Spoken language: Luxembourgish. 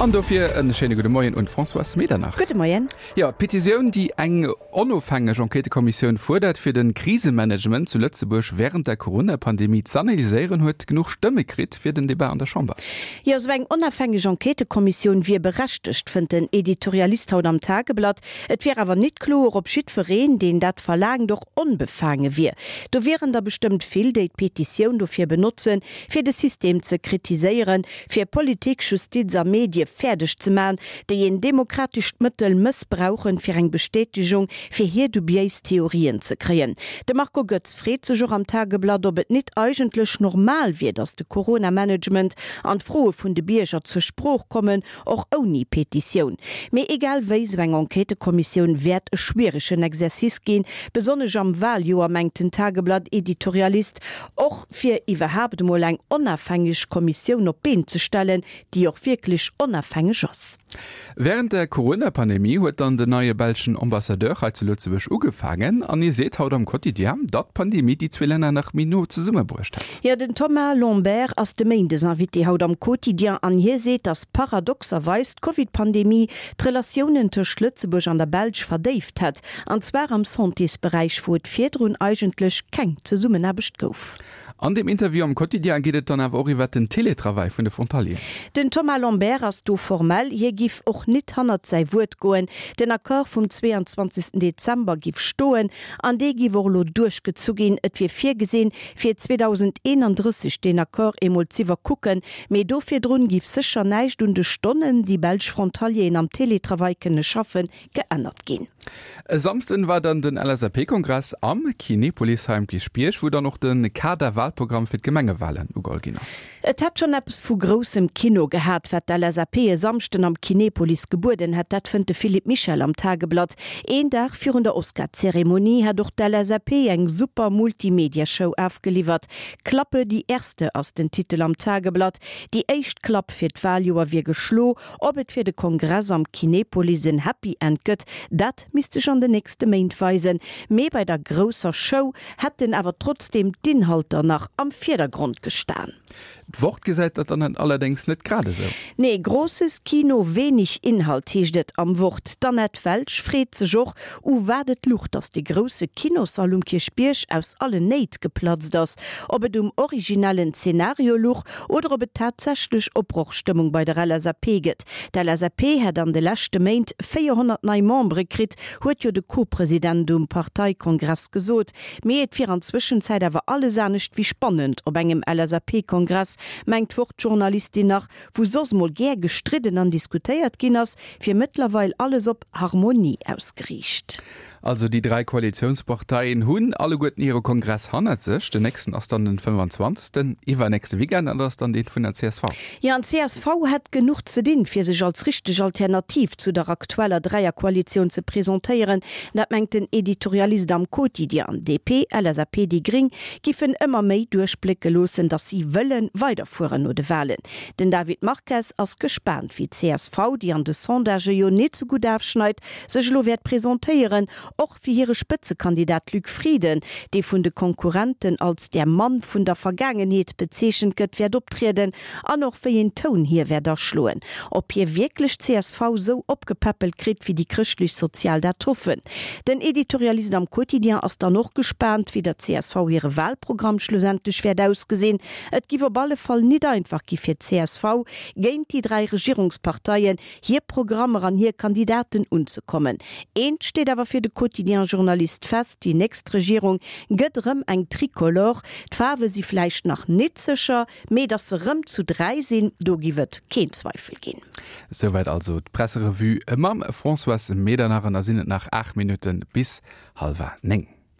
An dofir en schéine gudde Moien un d'Françoise Medernach. Gudde Moien. Jo, d'Petitioun, déi eng onofhängeg Enquêtëkommissioun fuerdert, fir de Krisemanagement zu Lëtzebuerg wärend der Corona-Pandemie z'analyséieren, huet genuch Stëmme kritt fir den Debat an der Chamber. Jo, esou eng onafhängeg Enquêtëkommissioun wier berechtegt, fënnt den Editorialist haut am Tageblatt. Et wier awer nit kloer, ob jiddwereen, deen dat verlaangt, och onbefaange wier. Do wieren der bestëmmt vill, déi d'Petitioun dofir benotzen, fir de System ze kritiséieren, fir Politik, Justiz a Medie fäerdeg ze man, déi een demokratescht Mëttel mëssbrauchen, fir eng Bestätegung fir hir dubiéis Theorien ze kréien. De Marco Goetz freet sech och am Tageblatt, ob et nit eigentlech normal wier, datt de Corona-Management an d'Froe vun de Bierger zur Sprooch kommen, och ouni Petitioun. Mee egal wéi, sou eng Enquêtëkommissioun wäert e schwieregen Exercice ginn, besonnesch am Waljoer, mengt den Tageblatt-Editorialist. Och fir iwwerhaapt emol eng onafhängeg Kommissioun op d'Been ze stellen, déi och wierklech onafhängeg ass. Wärend der Corona-Pandemie huet dann den neie belschen Ambassadeur hei zu Lëtzebuerg ugefaangen an hie seet haut am Quotidien, datt d'Pandemie déi zwee Länner nach méi no zesummebruecht hätt. Jo, den Thomas Lambert ass de Méindesinvité haut am Quotidien an hie seet, datt paradoxerweis d'Covid-Pandemie d'Relatiounen tëscht Lëtzebuerg an der Belsch verdéift hätt. An zwar am Santésberäich, wou et virdrun eigentlech keng Zesummenaarbecht gouf. An deem Interview am Quotidien geet et dann awer och iwwert den Télétravail vun de Frontalieren. Den Thomas Lambert ass do formell, hie giff och nit hannert säi Wuert goen. Den Accord vum 22 Dezember giff stoen an dee giff och elo duerchgezu ginn. Et wier virgesinn, fir 2031 deen Accord eemol z'iwwerkucken, mee do virdrun giff sécher näischt un de Stonnen, déi belsch Frontalieren am Télétravail kënne schaffen, geännert ginn. E Samsden war dann den LSAP-Kongress am Kinepolis hei um Kierchbierg, wou dann och de Kader-Wahlprogramm fir d'Gemengewahlen ugeholl ginn ass. Et hätt schonn eppes vu groussem Kino gehat, wat d'LSAP e Samschden am Kinepolis gebueden hätt. Dat fënnt de Philippe Michel am Tageblatt. Een Dag virun der Oscar-Zeremonie hätt och d'LSAP eng super Multimedia-Show afgeliwwert. Klappe die Erste ass den Titel am Tageblatt. Déi éischt Klapp fir d'Wahljoer wier geschlo. Ob et fir de Kongress am Kinepolis en Happy End gëtt, dat misst sech an den nächste Méint weisen. Mee bei der grousser Show hätten awer trotzdeem d'Inhalter nach am Virdergrond gestan. D'Wort gesäit dat dann allerdéngs net grad esou. Nee, Großes Kino, wenig Inhalt heescht et am Wort. D'Annette Welsch freet sech och, u wat et luch, datt de grousse Kinossall um Kierchbierg aus allen Néit geplatzt ass. Ob et um originellen Zenario luch oder ob et tatsächlech Opbrochstëmmung bei der LSAP gëtt. D'LSAP hätt an de leschte Méint 400 nei Membere kritt, huet jo de Co-President um Parteikongress gesot. Mee et wier an Zwëschenzäit awer alles anescht wéi spannend op engem LSAP-Kongress, mengt d'Wort-Journalistin nach, wou soss mol gär gestridden an diskutéiert ginn ass, wier mëttlerweil alles op Harmonie ausgeriicht. Also déi 3 Koalitiounsparteien hunn alleguerten hire Kongress hannert sech. Den nächsten ass dann den 25. Iwwernächste Weekend an dat ass dann dee vun der csv. Jo, an d'CSV hätt genuch ze dinn, fir sech als richteg Alternativ zu der aktueller Dräierkoalitioun ze presentéieren. Dat mengt den Editorialist am Quotidien. DP, LSAP, déi Gring giffen ëmmer méi duerchblécke loossen, datt si wëlle weiderfueren no de Walen. Den David Marques ass gespaant, wéi d'CSV, déi an de Sondagë jo net sou gutt afschneit, sech elo wäert presentéieren, och wéi hire Spëtzekandidat Luc Frieden, dee vun de Konkurrenten als der Mann vun der Vergaangenheet bezeechent gëtt, wäert optrieden an och wéi een Toun hie wäert aschloen. Ob hie wierklech d'CSV sou opgepäppelt kritt, wéi déi Chrëschtlech-Sozial dat hoffen. Den Editorialist am Quotidien ass dann och gespaant, wéi der csv hire Wahlprogramm schlussendlech wäert ausgesinn. Et giff op alle Fall nit einfach gi fir d'CSV, géint déi 3 Regierungsparteien, hir Programmer an hir Kandidaten unzekommen. Eent steet awer fir de Quotidien-Journalist fest, Déi nächst Regierung gëtt erëm eng Tricolore. D'Faarwe si vläicht nach nit sécher, mee datt se rëm zu 3 sinn, do giff et keen Zweifel ginn. Souwäit also d'Presserevue mam Françoise Medernach. An da sinn et nach 8 Minutte bis hallwer 9.